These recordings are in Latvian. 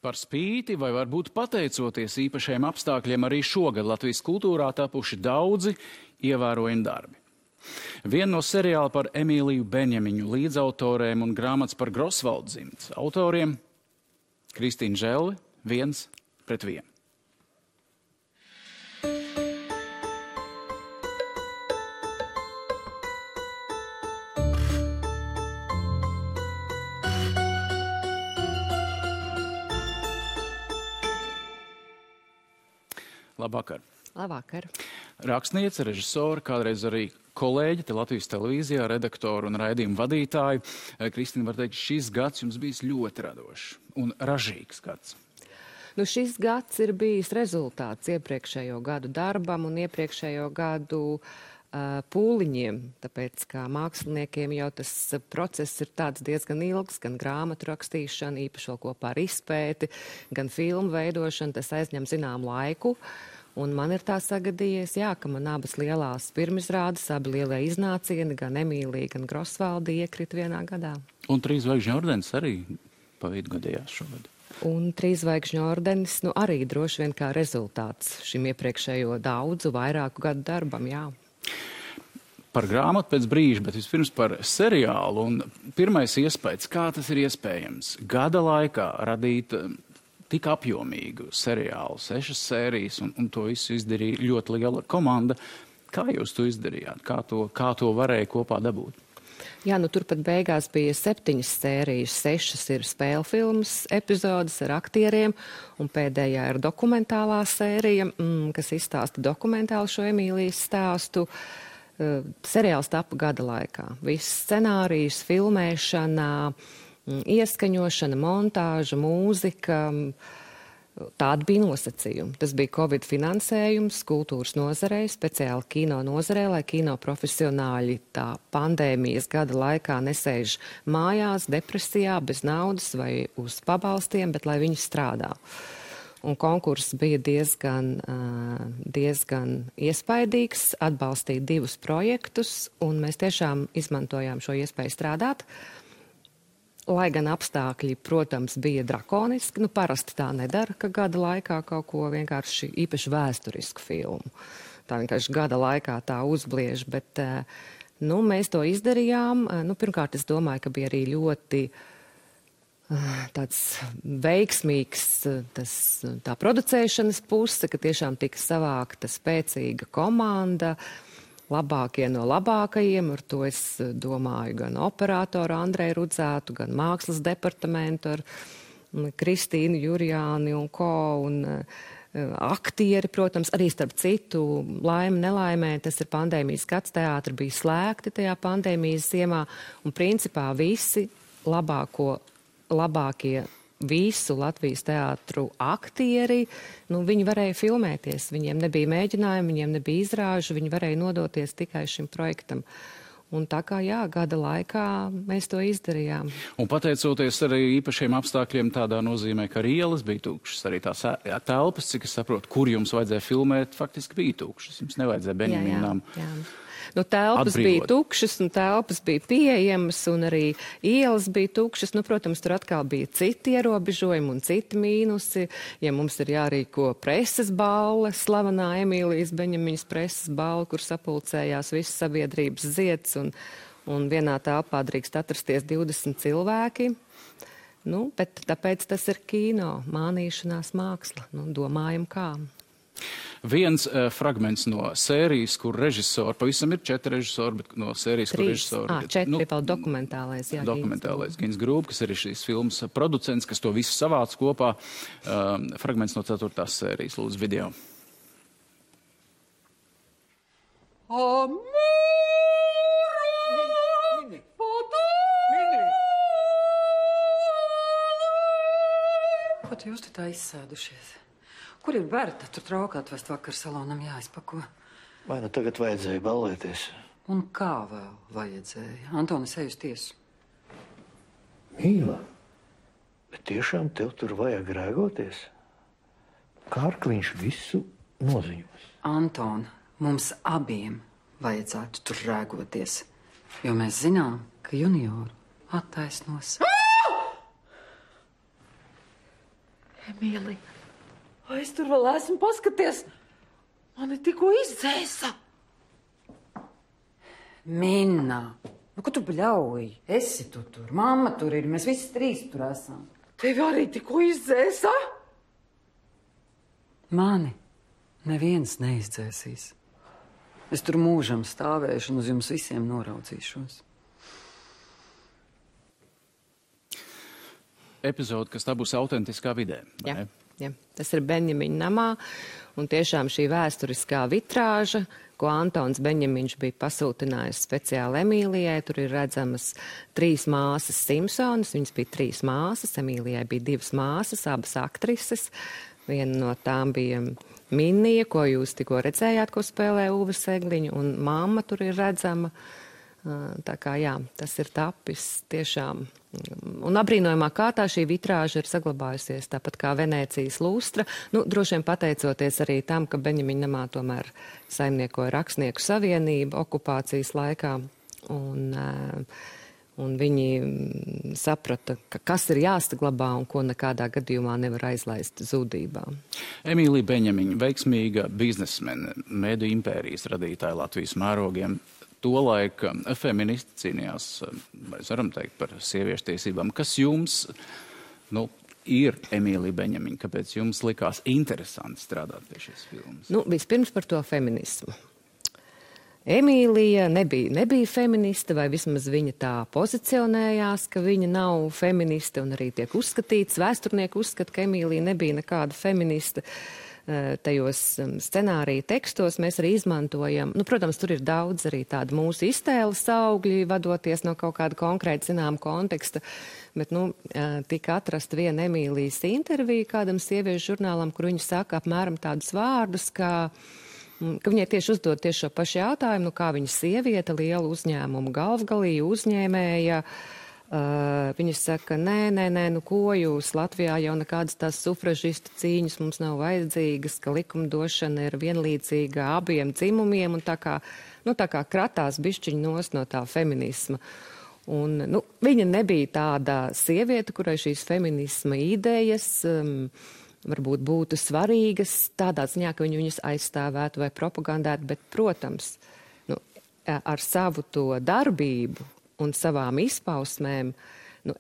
Par spīti vai varbūt pateicoties īpašiem apstākļiem arī šogad Latvijas kultūrā tapuši daudzi ievērojami darbi. Viena no seriāla par Emīliju Beņemiņu līdzautoriem un grāmatas par Grosvaldu dzimtes autoriem Kristīna Želle 1:1. Labvakar. Labvakar. Rakstniece, režisora, kādreiz arī kolēģi te Latvijas televīzijā, redaktori un raidījumu vadītāji. Kristīna, var teikt, šis gads jums bijis ļoti radošs un ražīgs gads. Nu, šis gads ir bijis rezultāts iepriekšējo gadu darbam un iepriekšējo gadu pūliņiem, tāpēc kā māksliniekiem jau tas process ir tāds diezgan ilgs, gan grāmatu rakstīšana, īpaši vēl kopā ar izpēti, gan filmu veidošana, tas aizņem zinām laiku. Un man ir tā sagadījies, ka man abas lielās pirmizrādes, abi lielie iznācieni, gan Emīlija, gan Grosvaldi iekrit vienā gadā. Un 3 zvaigžņu ordenis arī pa vidu gadījās šogad. Un 3 zvaigžņu ordenis, arī droši vien kā rezultāts šim iepriekšējo daudzu, vairāku gadu darbam, jā. Par grāmatu pēc brīža, bet vispirms par seriālu. Un pirmais iespējas, kā tas ir iespējams gada laikā radīt tik apjomīgu seriālu, 6 sērijas, un to visu izdarīja ļoti liela komanda. Kā jūs to izdarījāt? Kā to varēja kopā dabūt? Jā, turpat beigās bija 7 sērijas, 6 ir spēļu filmas epizodes ar aktieriem, un pēdējā ir dokumentālā sērija, kas izstāsta dokumentāli šo Emīlijas stāstu. Seriāls tapa gada laikā. Viss scenārijs, filmēšana, ieskaņošana, montāža, mūzika, tādi bija nosacījumi. Tas bija Covid finansējums kultūras nozarei, speciāli kino nozarei, lai kino profesionāļi tā pandēmijas gada laikā nesēž mājās, depresijā, bez naudas vai uz pabalstiem, bet lai viņi strādā. Un konkurss bija diezgan iespaidīgs, atbalstīja 2 projektus, un mēs tiešām izmantojām šo iespēju strādāt. Lai gan apstākļi, protams, bija drakoniski, parasti tā nedara, ka gada laikā kaut ko vienkārši īpaši vēsturisku filmu. Tā vienkārši gada laikā tā uzbliež, bet mēs to izdarījām. Pirmkārt, es domāju, ka bija arī ļoti tāds veiksmīgs tā producēšanas puse, ka tiešām tika savākta spēcīga komanda, labākie no labākajiem, ar to es domāju gan operātoru Andreju Rudzētu, gan mākslas departamentu ar Kristīnu Jurjāni un ko, un aktieri, protams, arī starp citu, laime, nelaimē, tas ir pandēmijas gads, teātri bija slēgti tajā pandēmijas ziemā, un principā visi labākie visu Latvijas teātru aktieri, viņi varēja filmēties, viņiem nebija mēģinājumi, viņiem nebija izrāžu, viņi varēja nodoties tikai šim projektam. Un tā kā, gada laikā mēs to izdarījām. Un pateicoties arī īpašiem apstākļiem tādā nozīmē, ka arī ielas bija tukšas, arī tās telpas, cik es saprotu, kur jums vajadzēja filmēt, faktiski bija tukšas. Jums nevajadzēja Beņeminām. Jā. Telpas bija tukšas un telpas bija pieejamas un arī ielas bija tukšas. Protams, tur atkal bija citi ierobežojumi un citi mīnusi. Ja mums ir jārīko preses balle, slavenā Emīlijas Beņemiņas preses balle, kur sapulcējās visas sabiedrības zieds un vienā telpā drīkst atrasties 20 cilvēki. Bet tāpēc tas ir kino, mānīšanās māksla. Domājam kā. Viens fragments no sērijas, kur režisori, pavisam ir 4 režisori, bet no sērijas, kur režisori... 4 vēl dokumentālais, jā. Dokumentālais Gins Grūb, kas ir šīs filmas producents, kas to visu savāc kopā. Fragments no 4. sērijas, lūdzu, video. Ko jūs te tā izsēdušies? Kur ir Berta? Tur trauku atvest vakar salonam jāizpako. Vai tagad vajadzēja ballēties? Un kā vēl vajadzēja? Antonis ej uz tiesu. Mīla, bet tiešām tev tur vajag rēgoties? Kārkliņš visu noziņos. Anton, mums abiem vajadzētu tur rēgoties, jo mēs zinām, ka junioru attaisnos. Emīlija, vai es tur vēl esmu? Paskaties, mani tikko izdzēsa. Minna, nu, ko tu bļauj? Esi tu tur, mamma tur ir, mēs visi trīs tur esam. Tevi arī tikko izdzēsa? Mani neviens neizdzēsīs. Es tur mūžam stāvēšu un uz jums visiem noraudzīšos. Epizode, kas tā būs autentiskā vidē. Jā, jā. Tas ir Benjamiņa namā, un tiešām šī vēsturiskā vitrāža, ko Antons Benjamiņš bija pasūtinājis speciāli Emīlijai. Tur ir redzamas 3 māsas Simpsonas, viņas bija 3 māsas, Emīlijai bija 2 māsas, abas aktrises. Viena no tām bija Minnija, ko jūs tikko redzējāt, ko spēlē Uve Segliņa, un mamma tur ir redzama. Tā kā jā, tas ir tapis tiešām. Un apbrīnojamā kārtā šī vitrāža ir saglabājusies, tāpat kā Venēcijas lustra. Nu, droši vien pateicoties arī tam, ka Benjamiņa namā tomēr saimniekoja Rakstnieku savienība okupācijas laikā. Un viņi saprata, ka kas ir jāsaglabā un ko nekādā gadījumā nevar aizlaist zudībā. Emīlija Benjamiņa, veiksmīga biznesmene, mediju impērijas radītāja Latvijas mērogiem. Tolaik feministi cīnījās, mēs varam teikt, par sieviešu tiesībām. Kas jums ir Emīlija Benjamiņa? Kāpēc jums likās interesanti strādāt pie šīs filmas? Vispirms par to feminismu. Emīlija nebija feministe, vai vismaz viņa tā pozicionējās, ka viņa nav feministe, un arī tiek uzskatīts, vēsturnieki uzskata, ka Emīlija nebija nekāda feministe. Tajos scenārija tekstos mēs arī izmantojam, protams, tur ir daudz arī tādu mūsu iztēles augļi, vadoties no kaut kāda konkrēta zinām konteksta, bet, tika atrast viena Emīlijas intervija kādam sieviešu žurnālam, kur viņa saka apmēram tādus vārdus, ka viņai tieši uzdod tieši šo pašu jautājumu, kā viņa sieviete, liela uzņēmuma galvgalīja, uzņēmēja. Viņa saka, nē, ko jūs Latvijā jau nekādas tās sufražistu cīņas mums nav vajadzīgas, ka likumdošana ir vienlīdzīga abiem dzimumiem un tā kā kratās bišķiņ nos no tā feminisma. Un, viņa nebija tāda sieviete, kurai šīs feminisma idejas varbūt būtu svarīgas tādā ziņā, ka viņas aizstāvētu vai propagandētu, bet, protams, ar savu to darbību un savām izpausmēm,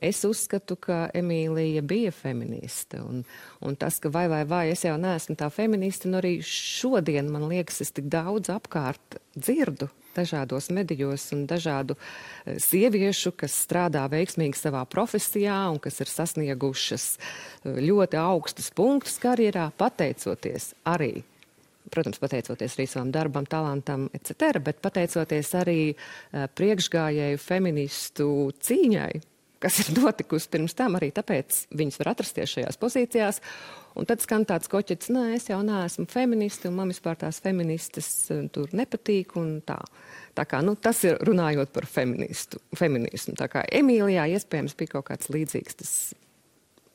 es uzskatu, ka Emīlija bija feministe. Un tas, ka vai, es jau neesmu tā feministe, arī šodien, man liekas, es tik daudz apkārt dzirdu dažādos medijos un dažādu sieviešu, kas strādā veiksmīgi savā profesijā un kas ir sasniegušas ļoti augstus punktus karjerā, pateicoties arī. Protams, pateicoties arī savam darbam, talantam, etc., bet pateicoties arī priekšgājēju feministu cīņai, kas ir notikusi pirms tam, arī tāpēc viņas var atrasties šajās pozīcijās. Un tad skan tāds koķets, es jau neesmu feministi, un man vispār tās feministas tur nepatīk, un tā. Tā kā, tas ir runājot par feminismu. Tā kā Emīlijā iespējams bija kaut kāds līdzīgs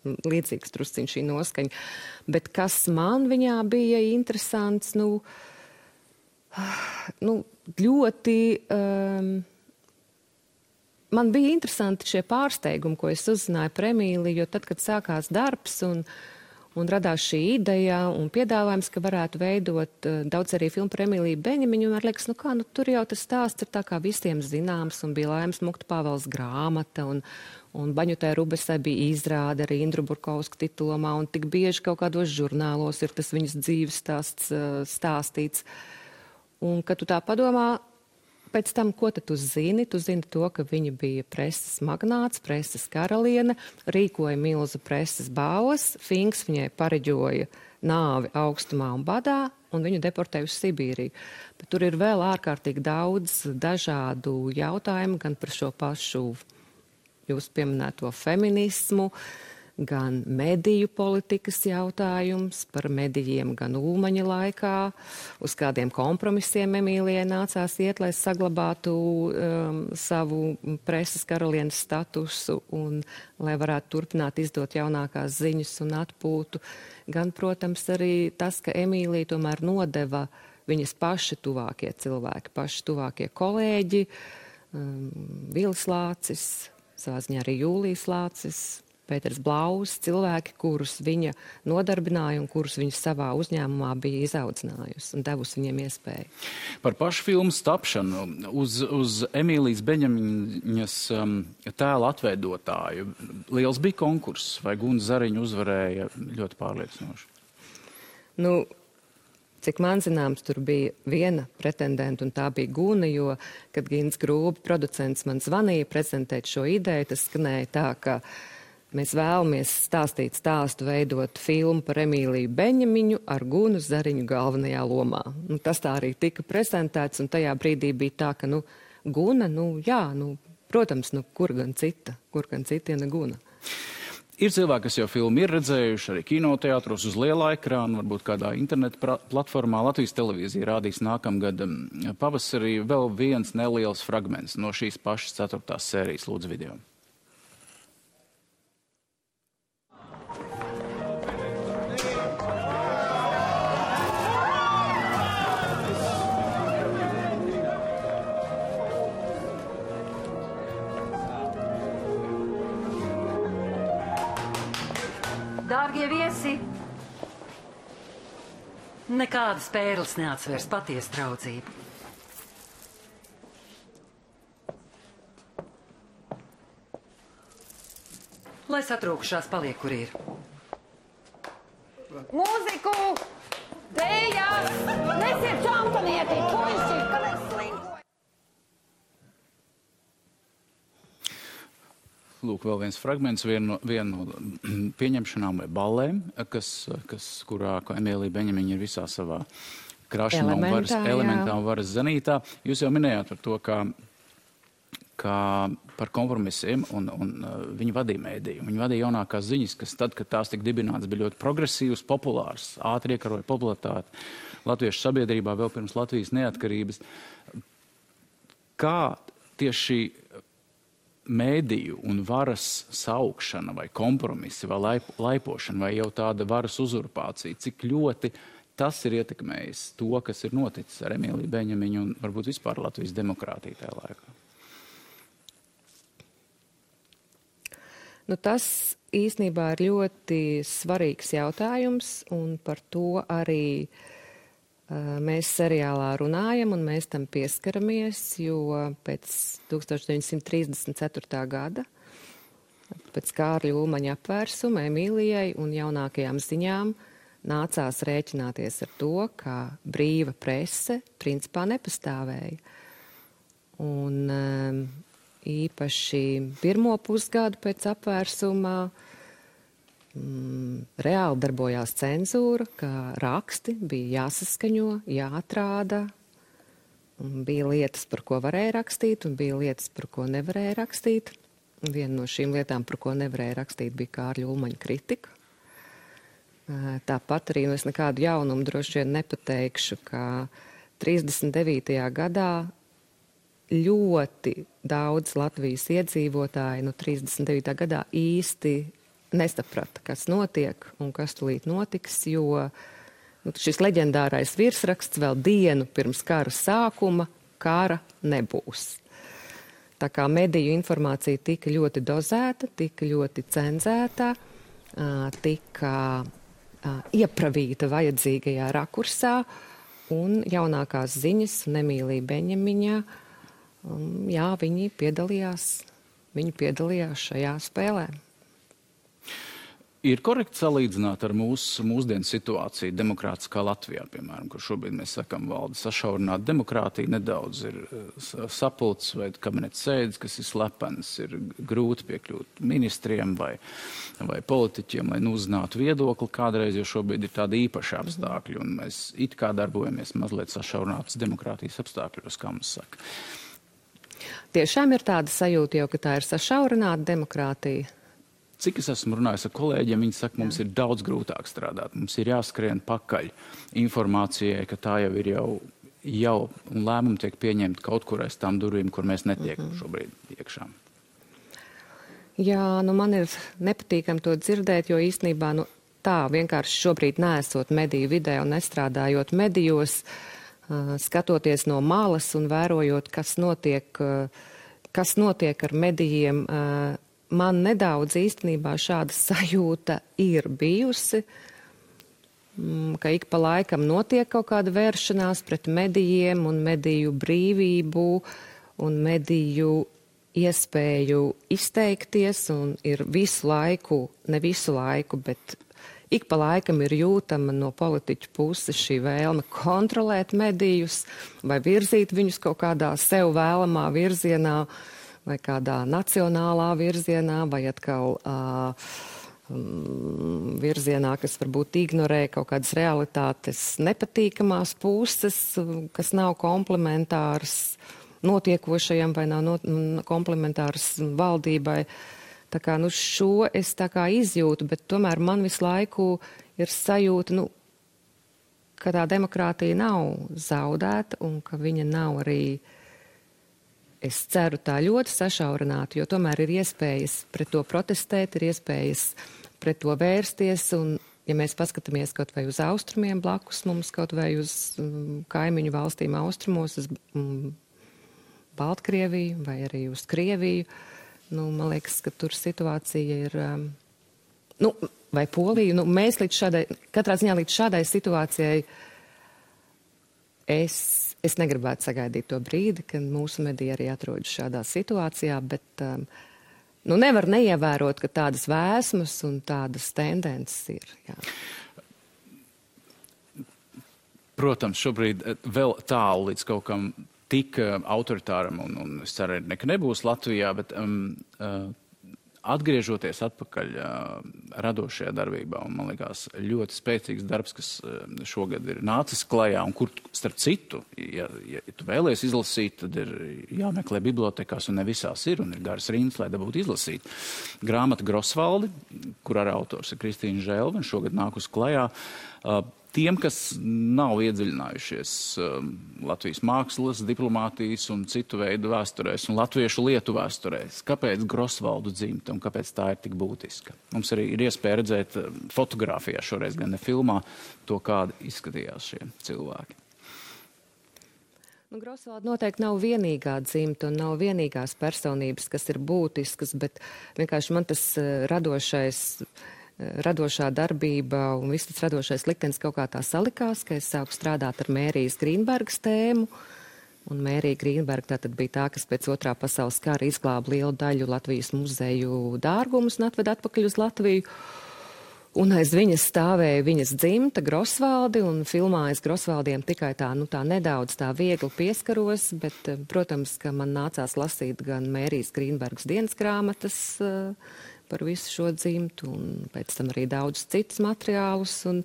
drusciņš šī noskaņa. Bet kas man viņā bija interesants, ļoti, man bija interesanti šie pārsteigumi, ko es uzzināju par Emīliju, jo tad, kad sākās darbs un radās šī ideja un piedāvājums, ka varētu veidot daudz arī filmu par Emīliju Benjamiņu, un man liekas, tur jau tas stāsts ir tā kā visiem zināms, un bija Laimas Mukta Pāvels grāmata, un Baņutai Rubesai bija izrāde arī Indru Burkovska titulomā, un tik bieži kaut kādos žurnālos ir tas viņas dzīves stāsts stāstīts. Un, kad tu tā padomā, pēc tam, ko tad tu zini? Tu zini to, ka viņa bija preses magnāts, preses karaliene, rīkoja milzu preses balvas, Finks viņai pareģoja nāvi augstumā un badā, un viņu deportēja uz Sibīriju. Bet tur ir vēl ārkārtīgi daudz dažādu jautājumu, gan par šo pašu jūs pieminēto feminismu, gan mediju politikas jautājums par medijiem gan Ulmaņa laikā, uz kādiem kompromisiem Emīlijai nācās iet, lai saglabātu savu preses karalienes statusu un lai varētu turpināt izdot jaunākās ziņas un atpūtu. Gan, protams, arī tas, ka Emīlija tomēr nodeva viņas paši tuvākie cilvēki, paši tuvākie kolēģi, Vilis Lācis, savā ziņā arī Jūlijas Lācis, Pēters Blaus, cilvēki, kurus viņa nodarbināja un kurus viņa savā uzņēmumā bija izaudzinājusi un devusi viņiem iespēju. Par pašu filmu tapšanu uz Emīlijas Beņamiņas tēla atveidotāju liels bija konkurss, vai Guna Zariņa uzvarēja ļoti pārliecinoši? Nu, cik man zināms, tur bija viena pretendenta, un tā bija Guna, jo, kad Gins Grūbi, producents, man zvanīja prezentēt šo ideju, tas skanēja tā, ka mēs vēlamies stāstīt stāstu, veidot filmu par Emīliju Beņamiņu ar Gunu Zariņu galvenajā lomā. Nu, tas tā arī tika prezentēts, un tajā brīdī bija tā, ka, Guna, protams, kur gan cita, ja ne Guna. Ir cilvēki, kas jau filmu ir redzējuši arī kinoteātros uz lielā ekrāna, varbūt kādā interneta platformā. Latvijas televīzija rādīs nākamgad pavasarī vēl viens neliels fragments no šīs pašas 4. sērijas. Lūdzu video. Dārgie viesi, nekādas pērles neatsvērs patiesu draudzību. Lai satrūkušās paliek, kur ir. Mūziku! Dējas! Nesiet čampanieti! Puiši! Kad es slinkoju! Lūk, vēl viens fragments, viena no pieņemšanām vai ballēm, kurā Emīlija Beņamiņa ir visā savā krašanā un elementā un varas zenītā. Jūs jau minējāt par to, kā par kompromisiem un viņi vadīja mēdīju. Viņi vadīja jaunākās ziņas, kas tad, kad tās tika dibināts, bija ļoti progresīvs, populārs, ātri iekaroja popularitāti latviešu sabiedrībā vēl pirms Latvijas neatkarības. Kā tieši mēdīju un varas saukšana vai kompromisi vai laipošana vai jau tāda varas uzurpācija, cik ļoti tas ir ietekmējis to, kas ir noticis ar Emīliju Beņamiņu un varbūt vispār Latvijas demokrātiju tajā laikā? Tas īstenībā ir ļoti svarīgs jautājums, un par to arī mēs seriālā runājam un mēs tam pieskaramies, jo pēc 1934. gada, pēc Kārļa Ulmaņa apvērsuma Emīlijai un jaunākajām ziņām nācās rēķināties ar to, ka brīva prese principā nepastāvēja. Un īpaši pirmo pusgadu pēc apvērsuma reāli darbojās cenzūra, ka raksti bija jāsaskaņo, jāatrāda. Bija lietas, par ko varēja rakstīt, un bija lietas, par ko nevarēja rakstīt. Viena no šīm lietām, par ko nevarēja rakstīt, bija Kārļa Ulmaņa kritika. Tāpat arī es nekādu jaunumu droši vien nepateikšu, ka 39. gadā ļoti daudz Latvijas iedzīvotāji 39. gadā īsti nesaprata, kas notiek un kas tulīt notiks, jo šis leģendārais virsraksts vēl dienu pirms kara sākuma kara nebūs. Tā kā mediju informācija tika ļoti dozēta, tika ļoti cenzēta, tika iepravīta vajadzīgajā rakursā, un jaunākās ziņas un Emīlija Beņamiņa, viņi piedalījās šajā spēlē. Ir korekti salīdzināt ar mūsdienu situāciju demokrātiskā Latvijā, piemēram, kur šobrīd mēs sakam valda sašaurināta demokrātija, nedaudz ir sapulces vai kabineta sēdes, kas ir slepenas, ir grūti piekļūt ministriem vai politiķiem, lai uzzinātu viedokli kādreiz, jo šobrīd ir tādi īpaši apstākļi, un mēs it kā darbojamies mazliet sašaurinātas demokrātijas apstākļos, kā mums saka. Tiešām ir tāda sajūta jau, ka tā ir sašaurināta demokrātija. Cik es esmu runājis ar kolēģiem, viņi saka, mums ir daudz grūtāk strādāt. Mums ir jāskrien pakaļ informācijai, ka tā jau ir jau un lēmumi tiek pieņemti kaut kur aiz tām durvīm, kur mēs netiekam šobrīd iekšā. Jā, man ir nepatīkami to dzirdēt, jo īstenībā tā vienkārši šobrīd neesot mediju vidē un nestrādājot medijos, skatoties no malas un vērojot, kas notiek ar medijiem, man nedaudz īstenībā šāda sajūta ir bijusi, ka ik pa laikam notiek kaut kāda vēršanās pret medijiem un mediju brīvību un mediju iespēju izteikties, un ir visu laiku, ne visu laiku, bet ik pa laikam ir jūtama no politiķu puses šī vēlme kontrolēt medijus vai virzīt viņus kaut kādā sev vēlamā virzienā vai kādā nacionālā virzienā vai atkal virzienā, kas varbūt ignorē kaut kādas realitātes nepatīkamās puses, kas nav komplementāras notiekošajam vai nav komplementāras valdībai. Tā kā, šo es tā kā izjūtu, bet tomēr man visu laiku ir sajūta, ka tā demokrātija nav zaudēta un ka viņa nav arī, es ceru, tā ļoti sašaurināta, jo tomēr ir iespējas pret to protestēt, ir iespējas pret to vērsties, un ja mēs paskatāmies kaut vai uz austrumiem blakus mums, kaut vai uz kaimiņu valstīm austrumos, uz Baltkrieviju vai arī uz Krieviju, man liekas, ka tur situācija ir, vai Poliju, mēs katrā ziņā līdz šādai situācijai es negribētu sagaidīt to brīdi, kad mūsu mediji arī atrodas šādā situācijā, bet nevar neievērot, ka tādas vēsmas un tādas tendences ir. Jā. Protams, šobrīd vēl tālu līdz kaut kam tik autoritāram, un es ceru, ka nebūs Latvijā, bet atgriežoties atpakaļ radošajā darbībā, un man liekas ļoti spēcīgs darbs, kas šogad ir nācis klajā, un kur, starp citu, ja tu vēlies izlasīt, tad ir jāmeklē bibliotekās, un ne visās ir, un ir garas rindas, lai dabūtu izlasīt. Grāmata Grosvaldi, kur ar autors ir Kristīna Želve, un šogad nākus klajā. Tiem, kas nav iedziļinājušies Latvijas mākslas, diplomātijas un citu veidu vēsturēs un latviešu lietu vēsturēs, kāpēc Grosvaldu dzimta un kāpēc tā ir tik būtiska? Mums arī ir iespēja redzēt fotogrāfijā, šoreiz gan ne filmā, to, kādi izskatījās šie cilvēki. Grosvalda noteikti nav vienīgā dzimta un nav vienīgās personības, kas ir būtiskas, bet vienkārši man tas radošā darbība un viss tas radošais liktenis kaut kā tā salikās, ka es sāku strādāt ar Mērijas Grīnbergas tēmu. Un Mērija Grīnberga tātad bija tā, kas pēc Otrā pasaules kara izglāba lielu daļu Latvijas muzeju dārgumus un atveda atpakaļ uz Latviju. Un aiz viņas stāvēja viņas dzimta Grosvaldi, un filmā es Grosvaldiem tikai tā nedaudz tā viegli pieskaros, bet, protams, ka man nācās lasīt gan Mērijas Grīnbergas dienas grāmatas par visu šo dzimtu, un pēc tam arī daudz citus materiālus. Un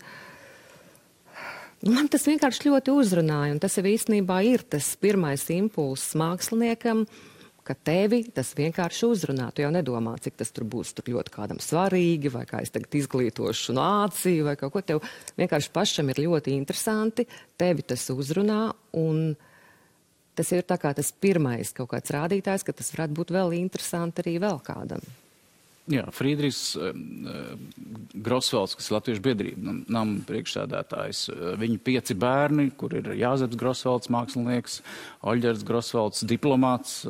man tas vienkārši ļoti uzrunāja, un tas jau īstenībā ir tas pirmais impulss māksliniekam, ka tevi tas vienkārši uzrunā. Tu jau nedomā, cik tas tur būs tur ļoti kādam svarīgi, vai kā es tagad izglītošu nāciju, vai kaut ko. Tev vienkārši pašam ir ļoti interesanti, tevi tas uzrunā, un tas ir tā kā tas pirmais kaut kāds rādītājs, ka tas varētu būt vēl interesanti arī vēl kādam. Jā, Frīdrichs Grosvalds, kas ir Latviešu biedrība, nama priekšsēdētājs, viņu 5 bērni, kur ir Jāzeps Grosvalds, mākslinieks, Oļģers Grosvalds, diplomāts,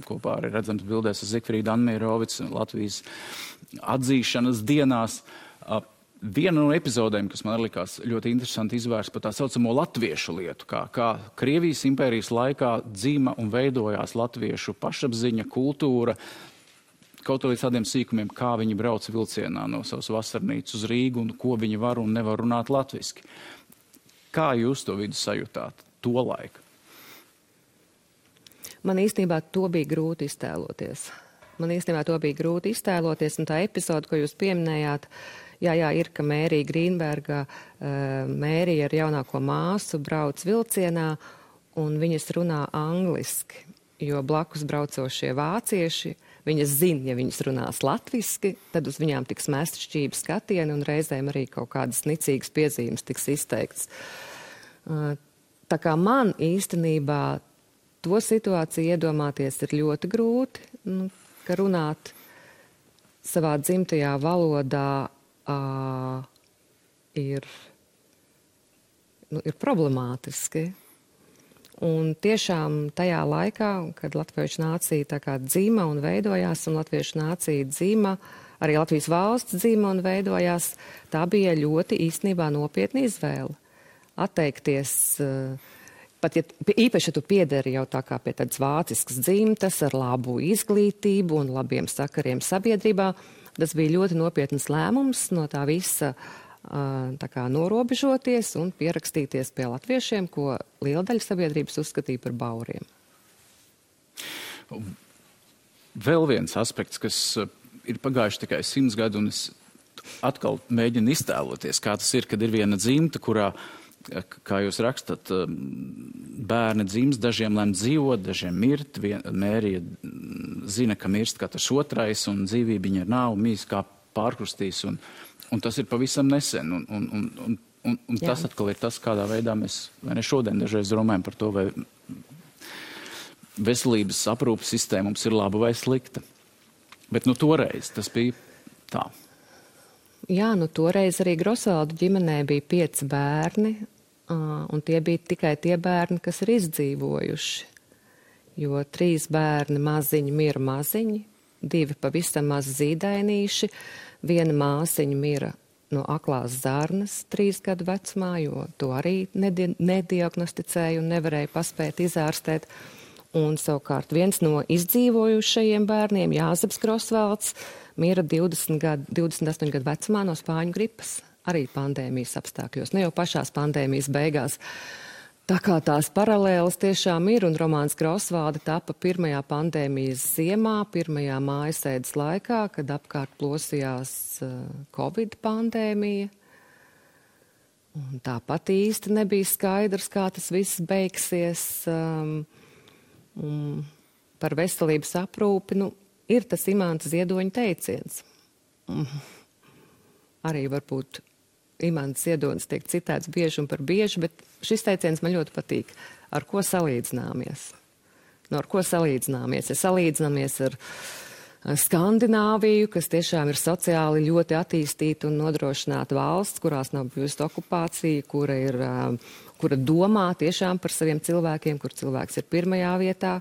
kopā arī redzams bildēs ar Zigfrīdu Anmierovics, Latvijas atzīšanas dienās. Viena no epizodēm, kas man likās ļoti interesanti izvērst par tā saucamo latviešu lietu, kā Krievijas impērijas laikā dzima un veidojās latviešu pašapziņa, kultūra, kaut līdz tādiem sīkumiem, kā viņi brauc vilcienā no savas vasarnīcas uz Rīgu un ko viņi var un nevar runāt latviski. Kā jūs to vidu sajūtāt to laiku? Man īstenībā to bija grūti iztēloties. Un tā epizode, ko jūs pieminējāt, jā, ir, ka Mērija Grīnberga, Mērija ar jaunāko māsu brauc vilcienā un viņas runā angliski, jo blakus braucošie vācieši, viņas zina, ja viņas runās latviski, tad uz viņām tiks mest šķīvi skatieni un reizēm arī kaut kādas nicīgas piezīmes tiks izteikts. Tā kā man īstenībā to situāciju iedomāties ir ļoti grūti, ka runāt savā dzimtajā valodā ir problemātiski. Un tiešām tajā laikā, kad latviešu nācija tā kā dzima un veidojās, un latviešu nācija dzima, arī Latvijas valsts dzima un veidojās, tā bija ļoti īstenībā nopietna izvēle. Atteikties, pat ja īpaši tu piederi jau tā kā pie tādas vāciskas dzimtas ar labu izglītību un labiem sakariem sabiedrībā, tas bija ļoti nopietnas lēmums no tā visa tā kā norobežoties un pierakstīties pie latviešiem, ko liela daļa sabiedrības uzskatīja par bauriem. Vēl viens aspekts, kas ir pagājuši tikai 100 gadu, un es atkal mēģinu iztēloties, kā tas ir, kad ir viena dzimta, kurā, kā jūs rakstat, bērni dzimst, dažiem lem dzīvot, dažiem mirt, Mērija zina, ka mirst katrs otrais, un dzīvība viņa nav, mīs kā pārkrustīs, un tas ir pavisam nesen, un tas atkal ir tas, kādā veidā mēs, vai ne šodien dažreiz runājam par to, vai veselības aprūpas sistēma mums ir laba vai slikta. Bet toreiz tas bija tā. Jā, toreiz arī Grosvaldu ģimenē bija 5 bērni, un tie bija tikai tie bērni, kas ir izdzīvojuši. Jo 3 bērni maziņi mira maziņi, 2 pavisam maz zīdainīši, 1 māsiņa mira no aklās zarnas 3 gadu vecumā, jo to arī nediagnosticēja un nevarēja paspēt izārstēt. Un savukārt viens no izdzīvojušajiem bērniem, Jāzeps Grosvalds, mira 28 gadu vecumā no spāņu gripas, arī pandēmijas apstākļos, ne jau pašās pandēmijas beigās. Tā kā tās paralēlas tiešām ir, un romāns Grosvaldi tapa pirmajā pandēmijas ziemā, pirmajā mājasēdes laikā, kad apkārt plosījās Covid pandēmija. Un tāpat īsti nebija skaidrs, kā tas viss beigsies. Par veselības aprūpi, ir tas Imanta Ziedoņa teiciens. Arī varbūt Imants Ziedonis tiek citēts bieži un par bieži, bet šis teiciens man ļoti patīk. Ar ko salīdzināmies? Ar ko salīdzināmies? Ja salīdzināmies ar Skandināviju, kas tiešām ir sociāli ļoti attīstīta un nodrošināta valsts, kurās nav bijusi okupācija, kura domā tiešām par saviem cilvēkiem, kur cilvēks ir pirmajā vietā.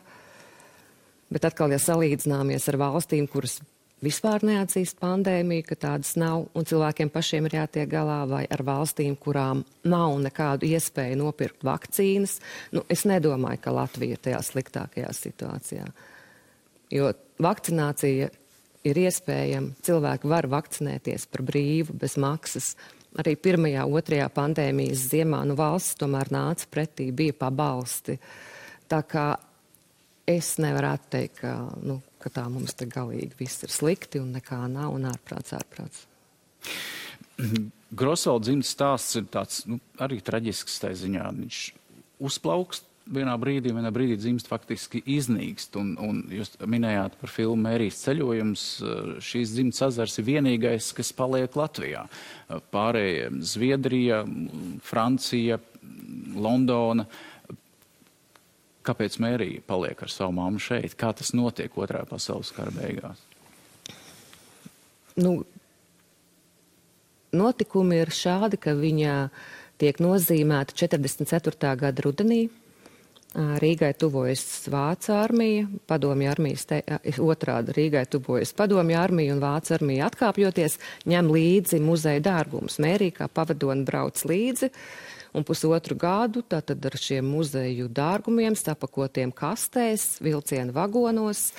Bet atkal, ja salīdzināmies ar valstīm, kuras vispār neatzīst pandēmiju, ka tādas nav, un cilvēkiem pašiem ir jātiek galā, vai ar valstīm, kurām nav nekādu iespēju nopirkt vakcīnas, es nedomāju, ka Latvija ir tajā sliktākajā situācijā. Jo vakcinācija ir iespējama, cilvēki var vakcinēties par brīvu, bez maksas. Arī 1., 2. pandēmijas ziemā valsts tomēr nāca pretī, bija pabalsti. Tā kā es nevaru teikt, ka tā mums te galīgi viss ir slikti un nekā nav un ārprāts. Grosvalda dzimtas stāsts ir tāds arī traģisks tā ziņā. Viņš uzplaukst vienā brīdī dzimst faktiski iznīkst. Un jūs minējāt par filmu Mērijas ceļojums. Šīs dzimtas ezers ir vienīgais, kas paliek Latvijā. Pārējie Zviedrija, Francija, Londona. Kāpēc Mērija paliek ar savu mammu šeit? Kā tas notiek 2. pasaules kara beigās? Notikumi ir šādi, ka viņa tiek nozīmēta 44. gada rudenī. Rīgai tuvojas Vācu armija, Padomju armijas otrādi Rīgai tuvojas Padomju armija un Vācu armija atkāpjoties, ņem līdzi muzeja dārgumus. Mērija kā pavadoni brauc līdzi. Un 1,5 gadu tātad ar šiem muzeju dārgumiem, sapakotiem kastēs, vilciena vagonos,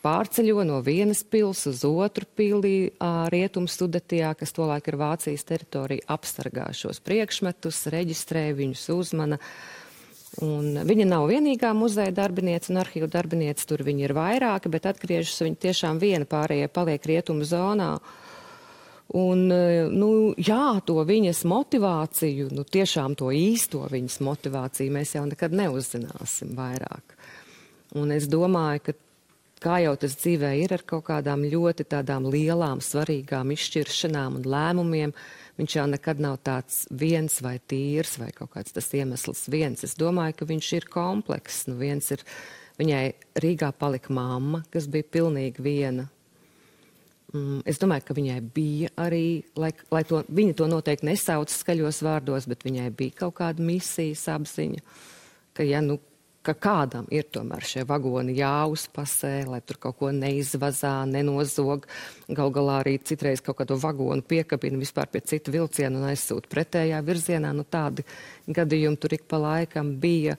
pārceļo no vienas pils uz otru pili Rietumu Sudetijā, kas tolaik ir Vācijas teritorija, apsargā šos priekšmetus, reģistrē viņus, uzmana. Un viņa nav vienīgā muzeja darbinieca un arhīvu darbinieca, tur viņi ir vairāki, bet atgriežas viņa tiešām viena, pārējie paliek Rietumu zonā. Un, to viņas motivāciju, tiešām to īsto viņas motivāciju mēs jau nekad neuzzināsim vairāk. Un es domāju, ka kā jau tas dzīvē ir ar kaut kādām ļoti tādām lielām, svarīgām izšķiršanām un lēmumiem, viņš jau nekad nav tāds viens vai tīrs vai kaut kāds tas iemesls viens. Es domāju, ka viņš ir komplekss. Viņai Rīgā palika mamma, kas bija pilnīgi viena. Es domāju, ka viņai bija arī, viņa to noteikti nesauc skaļos vārdos, bet viņai bija kaut kāda misijas apziņa, ka ka kādam ir tomēr šie vagoni jāuzpasē, lai tur kaut ko neizvazā, nenozog. Gal galā arī citreiz kaut kādu vagonu piekabina vispār pie citu vilcienu un aizsūt pretējā virzienā. Nu, tādi gadījumi tur ik pa laikam bija.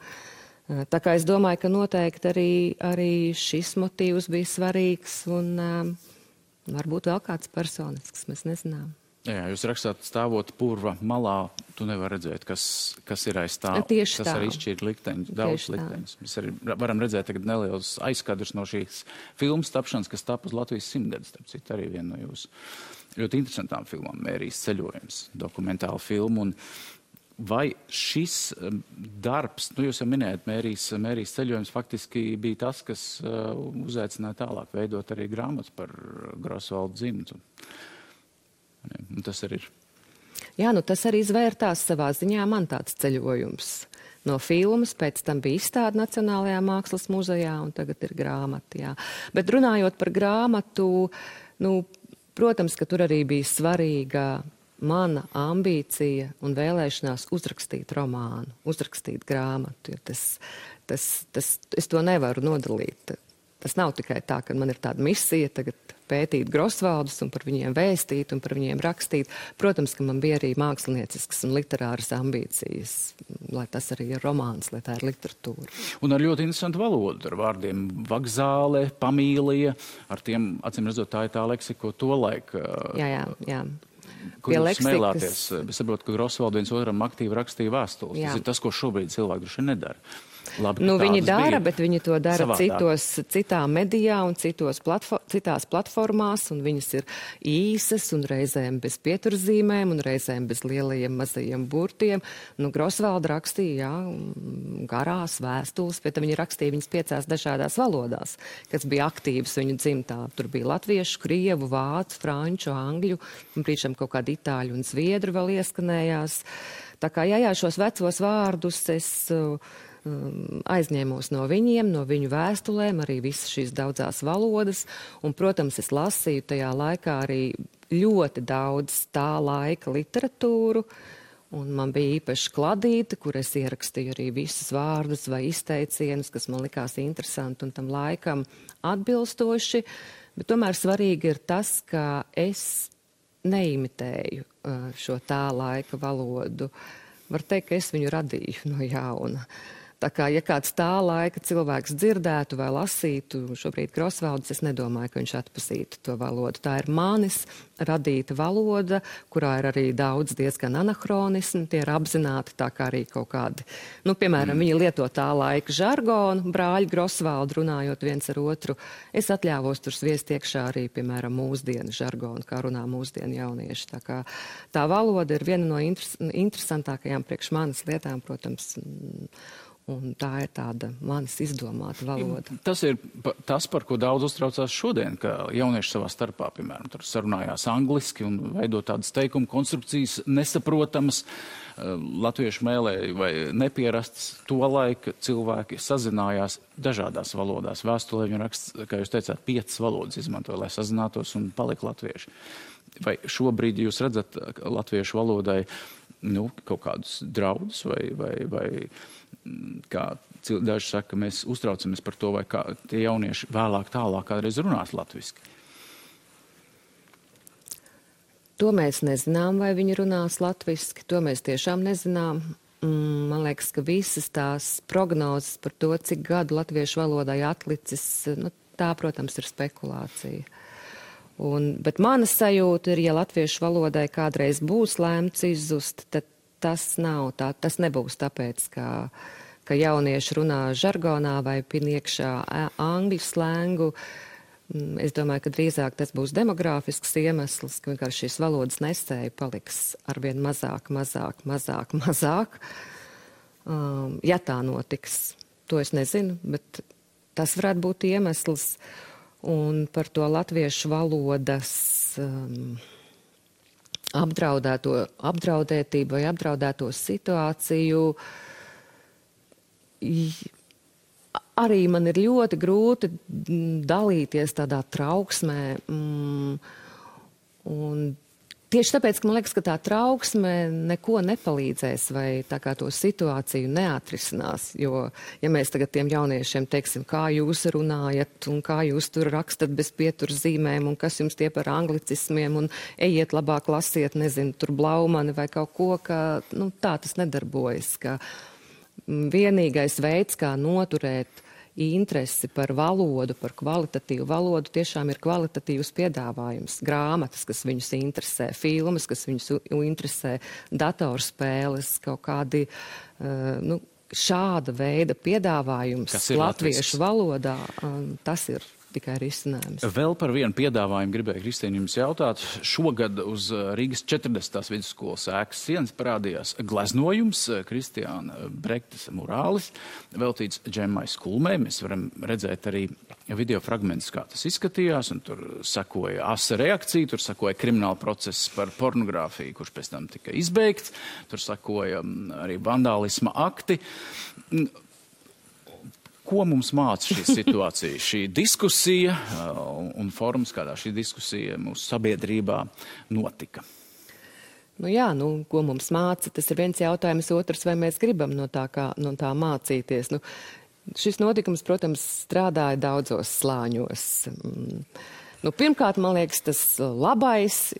Tā kā es domāju, ka noteikti arī šis motīvs bija svarīgs un varbūt vēl kāds personisks, mēs nezinām. Jā, jūs rakstāt, stāvot purva malā, tu nevar redzēt, kas ir aiz tā. Tieši tas tā. arī šķiet likteņus, daudz Tieši tā. likteņus. Mēs arī varam redzēt tagad nelielus aizskadrus no šīs filmas tapšanas, kas tapa uz Latvijas 100-gadus, starp citu arī viena no jūsu ļoti interesantām filmām, Mērijas ceļojums, dokumentāla filma. Un vai šis darbs, nu jūs jau minējat, Mērijas ceļojums faktiski bija tas, kas uzaicināja tālāk veidot arī grāmatas par Grosvaldu dzimtu. Un tas arī ir. Jā, nu tas arī izvērtās savā ziņā man tāds ceļojums. No filmas, pēc tam bija izstāde Nacionālajā mākslas muzejā un tagad ir grāmata, jā. Bet runājot par grāmatu, nu, protams, ka tur arī bija svarīga mana ambīcija un vēlēšanās uzrakstīt romānu, uzrakstīt grāmatu, jo es to nevaru nodalīt. Tas nav tikai tā, ka man ir tāda misija tagad pētīt Grosvaldus un par viņiem vēstīt un par viņiem rakstīt. Protams, ka man bija arī mākslinieciskas un literāras ambīcijas, lai tas arī ir romāns, lai tā ir literatūra. Un ar ļoti interesantu valodu, ar vārdiem vagzāle, pamīlija, ar tiem, acīm redzot, tā ir tā leksika, ko tolaik... Jā. Kur jūs smēlāties? Es saprotu, ka Grosvaldu viens otram aktīvi rakstīja vēstules. Tas ir tas, ko šobrīd cilvēki droši vien nedara. Labi, nu, viņi dara, bet viņi to dara citā medijā un citās platformās, un viņas ir īsas un reizēm bez pieturzīmēm un reizēm bez lielajiem mazajiem burtiem. Nu, Grosvalda rakstīja, garās vēstules, bet viņi rakstīja viņas 5 dažādās valodās, kas bija aktīvas viņu dzimtā. Tur bija latviešu, krievu, vācu, franču, angļu, un priekšam kaut kādi itāļu un zviedru vēl ieskanējās. Tā kā, jā, šos vecos vārdus es... aizņēmos no viņiem, no viņu vēstulēm, arī visas šīs daudzās valodas, un, protams, es lasīju tajā laikā arī ļoti daudz tā laika literatūru, un man bija īpaši kladīte, kur es ierakstīju arī visus vārdus vai izteicienus, kas man likās interesanti un tam laikam atbilstoši, bet tomēr svarīgi ir tas, ka es neimitēju šo tā laika valodu. Var teikt, ka es viņu radīju no jauna. Tā kā, ja kāds tā laika cilvēks dzirdētu vai lasītu šobrīd Grosvaldus, es nedomāju, ka viņš atpazītu to valodu. Tā ir manis radīta valoda, kurā ir arī daudz diezgan anahronismu, tie ir apzināti tā kā arī kaut kādi. Nu, piemēram, viņi lieto tā laika žargonu, brāļi Grosvaldu runājot viens ar otru. Es atļāvos tur sviest iekšā arī, piemēram, mūsdienu žargonu, kā runā mūsdienu jaunieši. Tā kā tā valoda ir viena no interesantākajām priekš manas lietām, protams, un tā ir tāda manis izdomāta valoda. Tas ir tas, par ko daudz uztraucās šodien, ka jaunieši savā starpā, piemēram, tur sarunājās angliski un veido tādas teikuma konstrukcijas nesaprotamas, latviešu mēlē vai nepierastas. Tolaik cilvēki sazinājās dažādās valodās. Vēstulē viņi raksta, kā jūs teicāt, 5 valodas izmantoja, lai sazinātos un palika latvieši. Vai šobrīd jūs redzat latviešu valodai kaut kādus draudus vai kā daži saka, mēs uztraucamies par to, vai kā tie jaunieši vēlāk tālāk kādreiz runās latviski? To mēs nezinām, vai viņi runās latviski, to mēs tiešām nezinām. Man liekas, ka visas tās prognozes par to, cik gadu latviešu valodai atlicis, tā, protams, ir spekulācija. Bet mana sajūta ir, ja latviešu valodai kādreiz būs lēmts izzust, tad tas nav tā, tas nebūs tāpēc, ka jaunieši runā žargonā vai pin iekšā angļu slēngu. Es domāju, ka drīzāk tas būs demogrāfisks iemesls, ka vienkārši šīs valodas nesēja paliks arvien mazāk. Ja tā notiks, to es nezinu, bet tas varētu būt iemesls. Un par to latviešu valodas apdraudētību vai apdraudēto situāciju arī man ir ļoti grūti dalīties tādā trauksmē. Un tieši tāpēc, ka man liekas, ka tā trauksme neko nepalīdzēs vai tā kā to situāciju neatrisinās. Jo, ja mēs tagad tiem jauniešiem teiksim, kā jūs runājat un kā jūs tur rakstat bez pieturzīmēm un kas jums tie par anglicismiem un ejiet labāk lasiet, nezinu, tur Blaumani vai kaut ko, ka tā tas nedarbojas. Ka vienīgais veids, kā noturēt interesi par valodu, par kvalitatīvu valodu, tiešām ir kvalitatīvs piedāvājums. Grāmatas, kas viņus interesē, filmas, kas viņus interesē, datorspēles, kaut kādi šāda veida piedāvājums latviešu valodā, tas ir tikai risinājums. Vēl par vienu piedāvājumu gribēju, Kristīne, jums jautāt. Šogad uz Rīgas 40. vidusskolas ēkas sienas parādījās gleznojums Kristiāna Brektas murālis, veltīts Džemmai Skulmei. Mēs varam redzēt arī video fragmentus, kā tas izskatījās, un tur sakoja asa reakcija, tur sakoja krimināla process par pornogrāfiju, kurš pēc tam tika izbeigts, tur sakoja arī vandālisma akti. Ko mums māca šī situācija, šī diskusija un formas, kādā šī diskusija mūsu sabiedrībā notika? Ko mums māca, tas ir viens jautājums, otrs, vai mēs gribam no tā mācīties. Šis notikums, protams, strādāja daudzos slāņos. Pirmkārt, man liekas, tas labais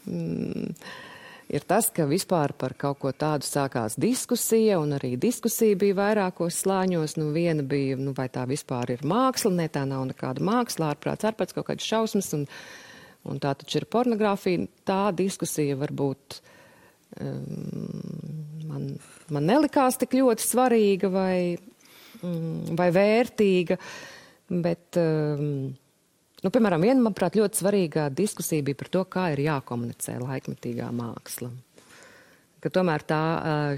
ir tas, ka vispār par kaut ko tādu sākās diskusija, un arī diskusija bija vairākos slāņos. Viena bija, vai tā vispār ir māksla, ne, tā nav nekāda māksla, ārprāts kaut kādas šausmas, un tā taču ir pornogrāfija. Tā diskusija varbūt man nelikās tik ļoti svarīga vai vērtīga, bet... piemēram, viena, manuprāt, ļoti svarīgā diskusija bija par to, kā ir jākomunicē laikmetīgā māksla. Ka tomēr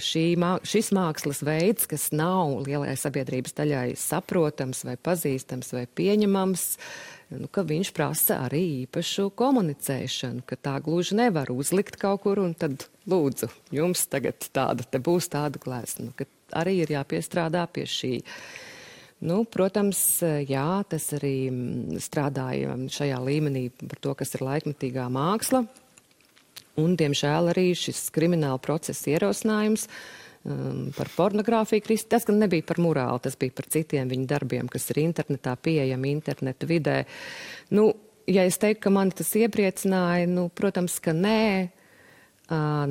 šis mākslas veids, kas nav lielai sabiedrības daļai saprotams vai pazīstams vai pieņemams, ka viņš prasa arī īpašu komunicēšanu, ka tā gluži nevar uzlikt kaut kur un tad lūdzu, jums tagad būs tāda glezna, ka arī ir jāpiestrādā pie šī. Protams, jā, tas arī strādāja šajā līmenī par to, kas ir laikmetīgā māksla. Un, diemžēl, arī šis krimināla procesa ierosinājums par pornogrāfiju. Tas gan nebija par murālu, tas bija par citiem viņa darbiem, kas ir internetā pieejami, interneta vidē. Ja es teiktu, ka mani tas iepriecināja, protams, ka nē.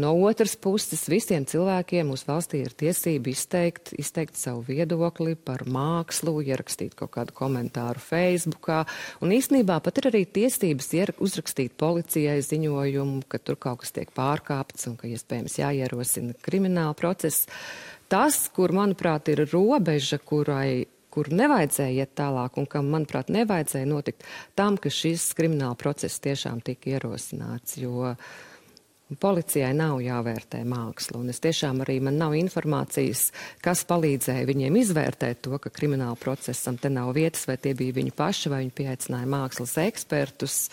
No otras puses, visiem cilvēkiem mūsu valstī ir tiesība izteikt savu viedokli par mākslu, ierakstīt kaut kādu komentāru Facebookā. Un īstenībā pat ir arī tiesības uzrakstīt policijai ziņojumu, ka tur kaut kas tiek pārkāpts un ka iespējams jāierosina krimināla process. Tas, kur, manuprāt, ir robeža, kur nevajadzēja iet tālāk un kam, manuprāt, nevajadzēja notikt tam, ka šis krimināla process tiešām tika ierosināts, jo policijai nav jāvērtē māksla, un es tiešām arī man nav informācijas, kas palīdzēja viņiem izvērtēt to, ka krimināla procesam te nav vietas, vai tie bija viņi paši, vai viņi pieaicināja mākslas ekspertus.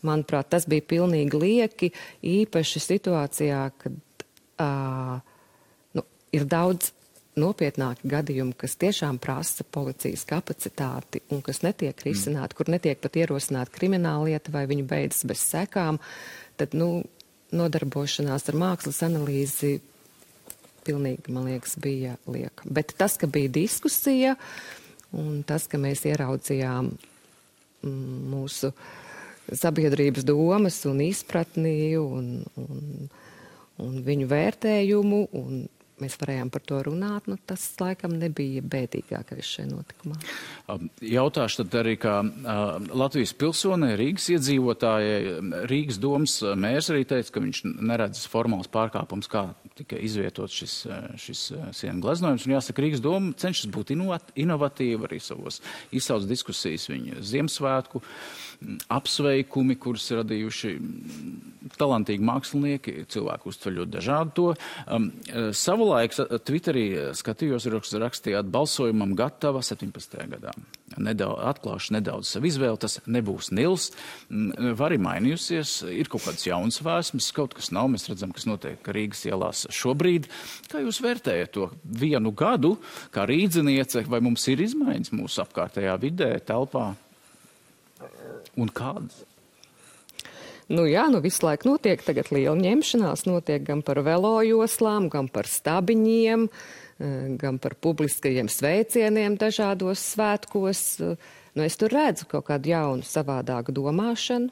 Manuprāt, tas bija pilnīgi lieki, īpaši situācijā, kad ir daudz nopietnāki gadījumi, kas tiešām prasa policijas kapacitāti un kas netiek risināti, kur netiek pat ierosināta krimināla lieta vai viņi beidzas bez sekām, tad, nodarbošanās ar mākslas analīzi pilnīgi, man liekas, bija lieka. Bet tas, ka bija diskusija un tas, ka mēs ieraudzījām mūsu sabiedrības domas un izpratni un viņu vērtējumu un mēs varējām par to runāt, tas laikam nebija bēdīgākais šajā notikumā. Jautāšu tad arī, kā Latvijas pilsonē, Rīgas iedzīvotājai, Rīgas domas mērs arī teica, ka viņš neredz formāls pārkāpums, kā tika izvietots šis sienu gleznojums. Un jāsaka, Rīgas doma cenšas būt inovatīva arī savos izsauc diskusijas viņa Ziemassvētku apsveikumi, kurus radījuši talantīgi mākslinieki, cilvēku uztver ļoti dažādu to. Savulaik Twitterī skatījos, rakstījāt balsojumam gatava 17. gadā. Atklāšu nedaudz savu izvēli, tas nebūs Nils. Vari mainījusies, ir kaut kāds jauns vēsmas, kaut kas nav. Mēs redzam, kas notiek Rīgas ielās šobrīd. Kā jūs vērtējat to vienu gadu, kā rīdziniece, vai mums ir izmaiņas mūsu apkārtējā vidē, telpā? Un kādas? Nu jā, visu laiku notiek tagad liela ņemšanās, notiek gan par velojoslām, gan par stabiņiem, gan par publiskajiem sveicieniem dažādos svētkos. Es tur redzu kaut kādu jaunu, savādāku domāšanu.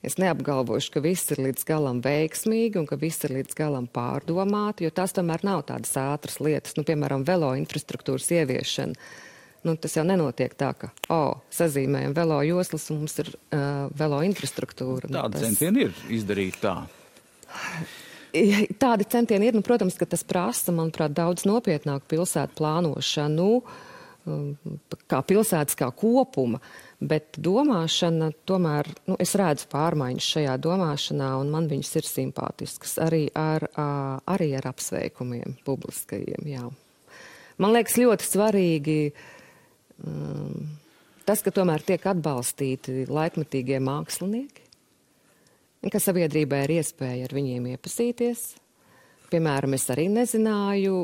Es neapgalvošu, ka viss ir līdz galam veiksmīgi un ka viss ir līdz galam pārdomāti, jo tās tomēr nav tādas ātras lietas. Piemēram, velo infrastruktūras ieviešana. Tas jau nenotiek tā, ka, sazīmējam velo joslas un mums ir velo infrastruktūra. Tādi centieni ir izdarīt tā. Tādi centieni ir, protams, ka tas prasa, manuprāt, daudz nopietnāku pilsētu plānošanu, kā pilsētas kā kopuma. Bet domāšana, tomēr, es redzu pārmaiņas šajā domāšanā, un man viņas ir simpātiskas, arī ar apsveikumiem publiskajiem, jā. Man liekas ļoti svarīgi tas, ka tomēr tiek atbalstīti laikmetīgie mākslinieki, ka sabiedrībai ir iespēja ar viņiem iepazīties. Piemēram, es arī nezināju,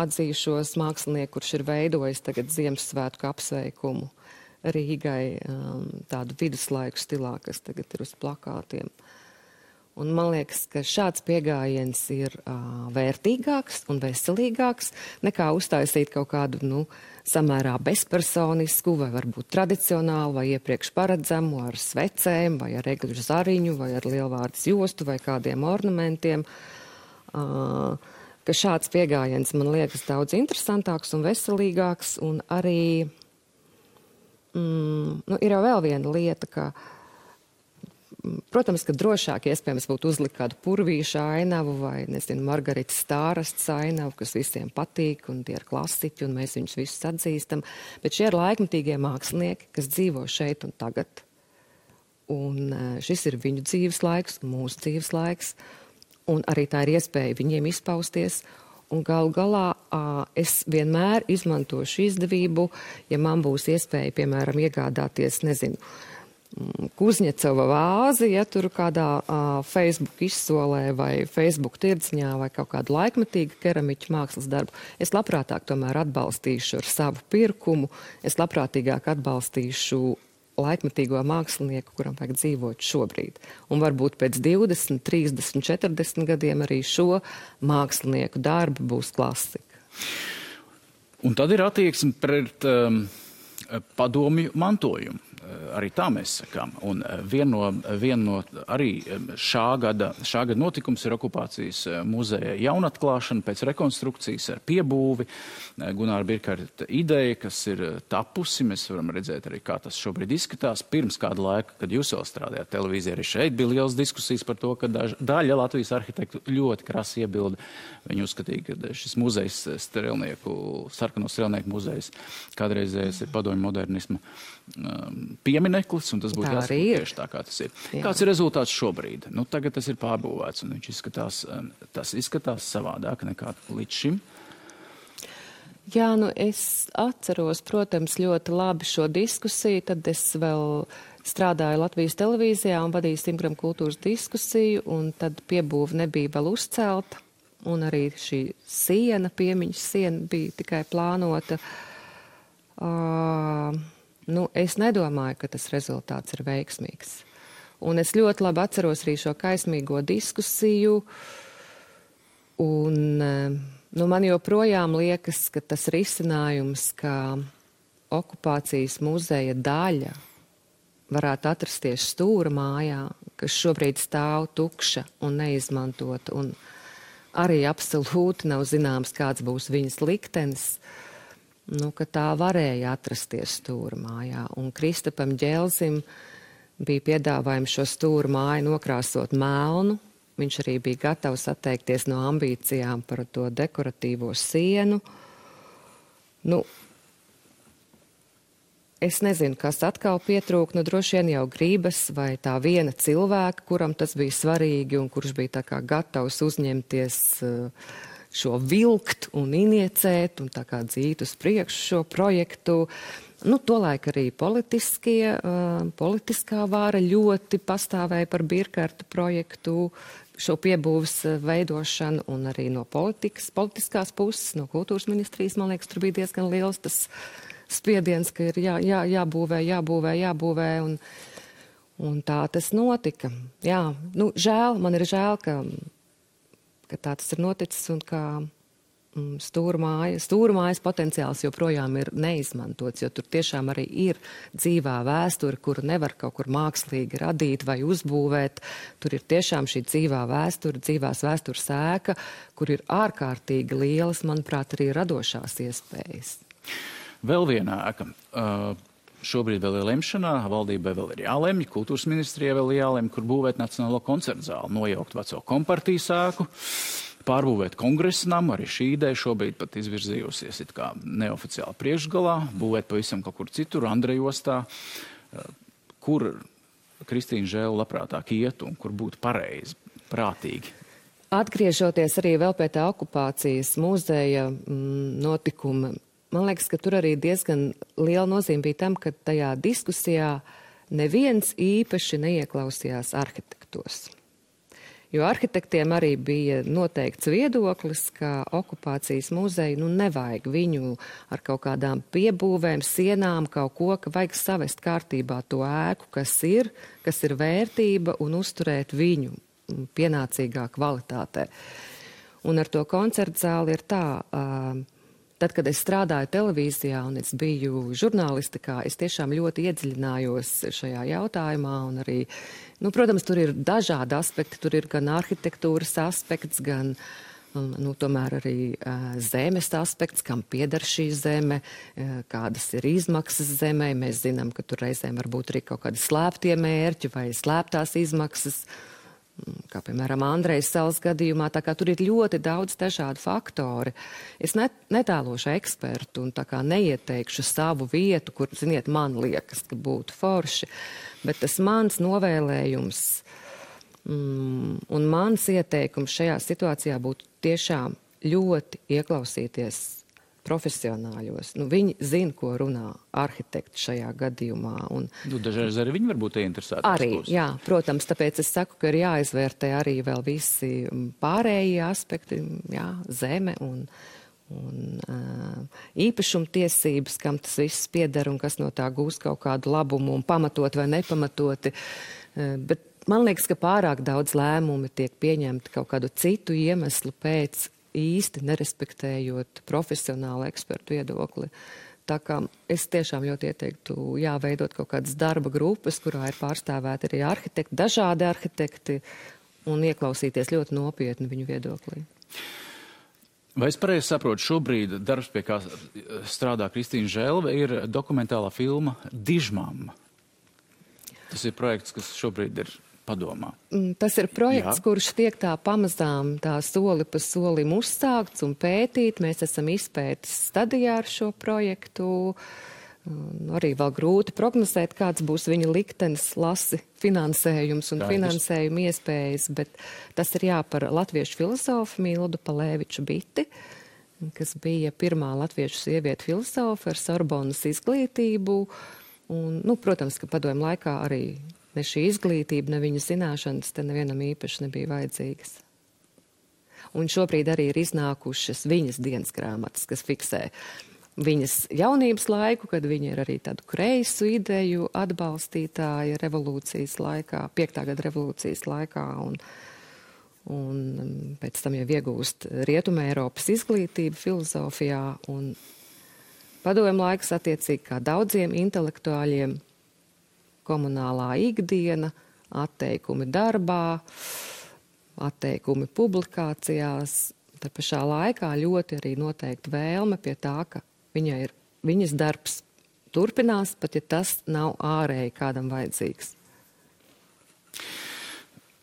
atzīšos mākslinieku, kurš ir veidojis tagad Ziemassvētku apsveikumu Rīgai, tādu viduslaiku stilā, kas tagad ir uz plakātiem. Un man liekas, ka šāds pieejams ir vērtīgāks un veselīgāks nekā uztaisīt kaut kādu samērā bezpersonisku vai varbūt tradicionālu vai iepriekš paredzamu ar svecēm vai ar egļu zariņu vai ar lielvārdas jostu vai kādiem ornamentiem. Ka šāds pieejams man liekas daudz interesantāks un veselīgāks, un arī ir jau vēl viena lieta, ka, protams, ka drošāk iespējams būtu uzlikt kādu purvīša ainavu vai, Margaritas Stārasts ainavu, kas visiem patīk, un tie ir klasiķi, un mēs viņus visus atzīstam, bet šie ir laikmetīgie mākslinieki, kas dzīvo šeit un tagad, un šis ir viņu dzīves laiks, mūsu dzīves laiks, un arī tā ir iespēja viņiem izpausties. Un galu galā es vienmēr izmantošu izdevību, ja man būs iespēja, piemēram, iegādāties, Kuzņecova vāzi, ja tur kādā Facebook izsolē vai Facebook tirdziņā vai kaut kādu laikmetīgu keramiķu mākslas darbu. Es labprātāk tomēr atbalstīšu ar savu pirkumu, es labprātīgāk atbalstīšu laikmetīgo mākslinieku, kuram vajag dzīvot šobrīd. Un varbūt pēc 20, 30, 40 gadiem arī šo mākslinieku darbi būs klasika. Un tad ir attieksme pret padomju mantojumu. Arī tā mēs sakām. Un viena no arī šā gada notikums ir okupācijas muzeja jaunatklāšana pēc rekonstrukcijas ar piebūvi. Gunāra Birkarta ideja, kas ir tapusi, mēs varam redzēt arī, kā tas šobrīd izskatās. Pirms kāda laika, kad jūs vēl strādājāt televīzijā, arī šeit bija liels diskusijas par to, ka daļa Latvijas arhitektu ļoti krasi iebilda. Viņi uzskatīja, ka šis muzejs, sarkano strelnieku muzejs, kādreizējais ir padomju modernisma piemineklis, un tas būtu jāsaka tieši tā, kā tas ir. Jā. Kāds ir rezultāts šobrīd? Tagad tas ir pārbūvēts, un viņš izskatās savādāk nekā līdz šim. Jā, es atceros, protams, ļoti labi šo diskusiju, tad es vēl strādāju Latvijas televīzijā un vadīju Simgram kultūras diskusiju, un tad piebūve nebija vēl uzcelta, un arī šī siena, piemiņas siena bija tikai plānota. Es nedomāju, ka tas rezultāts ir veiksmīgs. Un es ļoti labi atceros arī šo kaismīgo diskusiju. Un man joprojām liekas, ka tas risinājums, ka okupācijas muzeja daļa varētu atrasties Stūra mājā, kas šobrīd stāv tukša un neizmantota, un arī absolūti nav zināms, kāds būs viņas liktenis, ka tā varēja atrasties Stūra mājā. Un Kristapam Ģelzim bija piedāvājums šo Stūra māju nokrāsot melnu. Viņš arī bija gatavs atteikties no ambīcijām par to dekoratīvo sienu. Es nezinu, kas atkal pietrūk, droši vien jau gribas vai tā viena cilvēka, kuram tas bija svarīgi un kurš bija tā kā gatavs uzņemties šo vilkt un iniecēt un tā kā dzīt uz priekšu šo projektu. Tolaik arī politiskā vāra ļoti pastāvēja par Birkarta projektu, šo piebūves veidošanu, un arī no politiskās puses, no kultūras ministrijas, man liekas, tur bija diezgan liels tas spiediens, ka ir jābūvē, un tā tas notika. Jā, nu, man ir žēl, ka tā tas ir noticis un ka stūrmājas potenciāls joprojām ir neizmantots, jo tur tiešām arī ir dzīvā vēsture, kuru nevar kaut kur mākslīgi radīt vai uzbūvēt. Tur ir tiešām šī dzīvā vēsture, dzīvās vēstures ēka, kur ir ārkārtīgi lielas, manuprāt, arī radošās iespējas. Vēl viena ēka. Šobrīd vēl ir lemšanā, valdībai vēl ir jālemj, kultūras ministrijai vēl jālemj, kur būvēt Nacionālo koncertu zāli, nojaukt veco kompartijas ēku, pārbūvēt kongresa namu, arī šī ideja šobrīd pat izvirzījusies it kā neoficiāli priekšgalā, būvēt pavisam kaut kur citur, Andrejostā, kur Kristīna Žēle labprātāk iet un kur būtu pareizi, prātīgi. Atgriežoties arī vēl pie tā okupācijas muzeja notikuma, man liekas, ka tur arī diezgan liela nozīme bija tam, ka tajā diskusijā neviens īpaši neieklausījās arhitektos. Jo arhitektiem arī bija noteikts viedoklis, ka okupācijas muzeju nevajag viņu ar kaut kādām piebūvēm, sienām, kaut ko, ka vajag savest kārtībā to ēku, kas ir vērtība un uzturēt viņu pienācīgā kvalitātē. Un ar to koncertu zāli ir tā, tad, kad es strādāju televīzijā un es biju žurnālistikā, es tiešām ļoti iedziļinājos šajā jautājumā un arī, protams, tur ir dažādi aspekti, tur ir gan arhitektūras aspekts, gan, tomēr arī zemes aspekts, kam pieder šī zeme, kādas ir izmaksas zemē. Mēs zinām, ka tur reizēm varbūt arī kaut kādi slēptie mērķi vai slēptās izmaksas, kā piemēram Andrejas salas gadījumā, tā kā tur ir ļoti daudz dažādu faktori. Es netēlošu ekspertu un tā kā neieteikšu savu vietu, kur, ziniet, man liekas, ka būtu forši, bet tas mans novēlējums un mans ieteikums šajā situācijā būtu tiešām ļoti ieklausīties profesionāļos. Viņi zina, ko runā arhitekti šajā gadījumā. Dažreiz arī viņi varbūt ieinteresēti. Arī, jā, protams, tāpēc es saku, ka ir jāizvērtē arī vēl visi pārējie aspekti, jā, zeme un īpašumtiesības, kam tas viss pieder un kas no tā gūs kaut kādu labumu un pamatot vai nepamatoti. Bet man liekas, ka pārāk daudz lēmumi tiek pieņemti kaut kādu citu iemeslu pēc, īsti nerespektējot profesionālu ekspertu viedokli. Tā kā es tiešām ļoti ieteiktu veidot kaut kādas darba grupas, kurā ir pārstāvēti arī arhitekti, dažādi arhitekti, un ieklausīties ļoti nopietni viņu viedoklī. Vai es pareizi saprotu, šobrīd darbs, pie kā strādā Kristīna Žēle, ir dokumentālā filma Dižmamma? Tas ir projekts, kas šobrīd ir padomā. Tas ir projekts, kurš tiek tā pamazām tā soli pa solim uzsākts un pētīt. Mēs esam izpētes stadijā ar šo projektu. Arī vēl grūti prognozēt, kāds būs viņa liktenis, lasi, finansējums un finansējuma iespējas, bet tas ir par latviešu filozofu Mildu Palēviču Biti, kas bija pirmā latviešu sieviete filozofa ar Sorbonas izglītību. Un, protams, ka padomju laikā arī ne šī izglītība, ne viņa zināšanas te nevienam īpaši nebija vajadzīgas. Un šobrīd arī ir iznākušas viņas dienas grāmatas, kas fiksē viņas jaunības laiku, kad viņa ir arī tādu kreisu ideju atbalstītāja revolūcijas laikā, 5. gada revolūcijas laikā, un pēc tam jau iegūst Rietumē Eiropas izglītību filozofijā, un padomju laiks attiecīgi kā daudziem intelektuāļiem, komunālā ikdiena, atteikumi darbā, atteikumi publikācijās. Tā pašā laikā ļoti arī noteikti vēlme pie tā, ka viņas darbs turpinās, pat ja tas nav ārēji kādam vajadzīgs.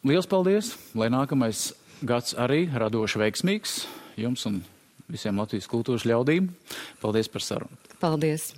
Liels paldies, lai nākamais gads arī radoši veiksmīgs jums un visiem Latvijas kultūras ļaudīm. Paldies par sarunu. Paldies.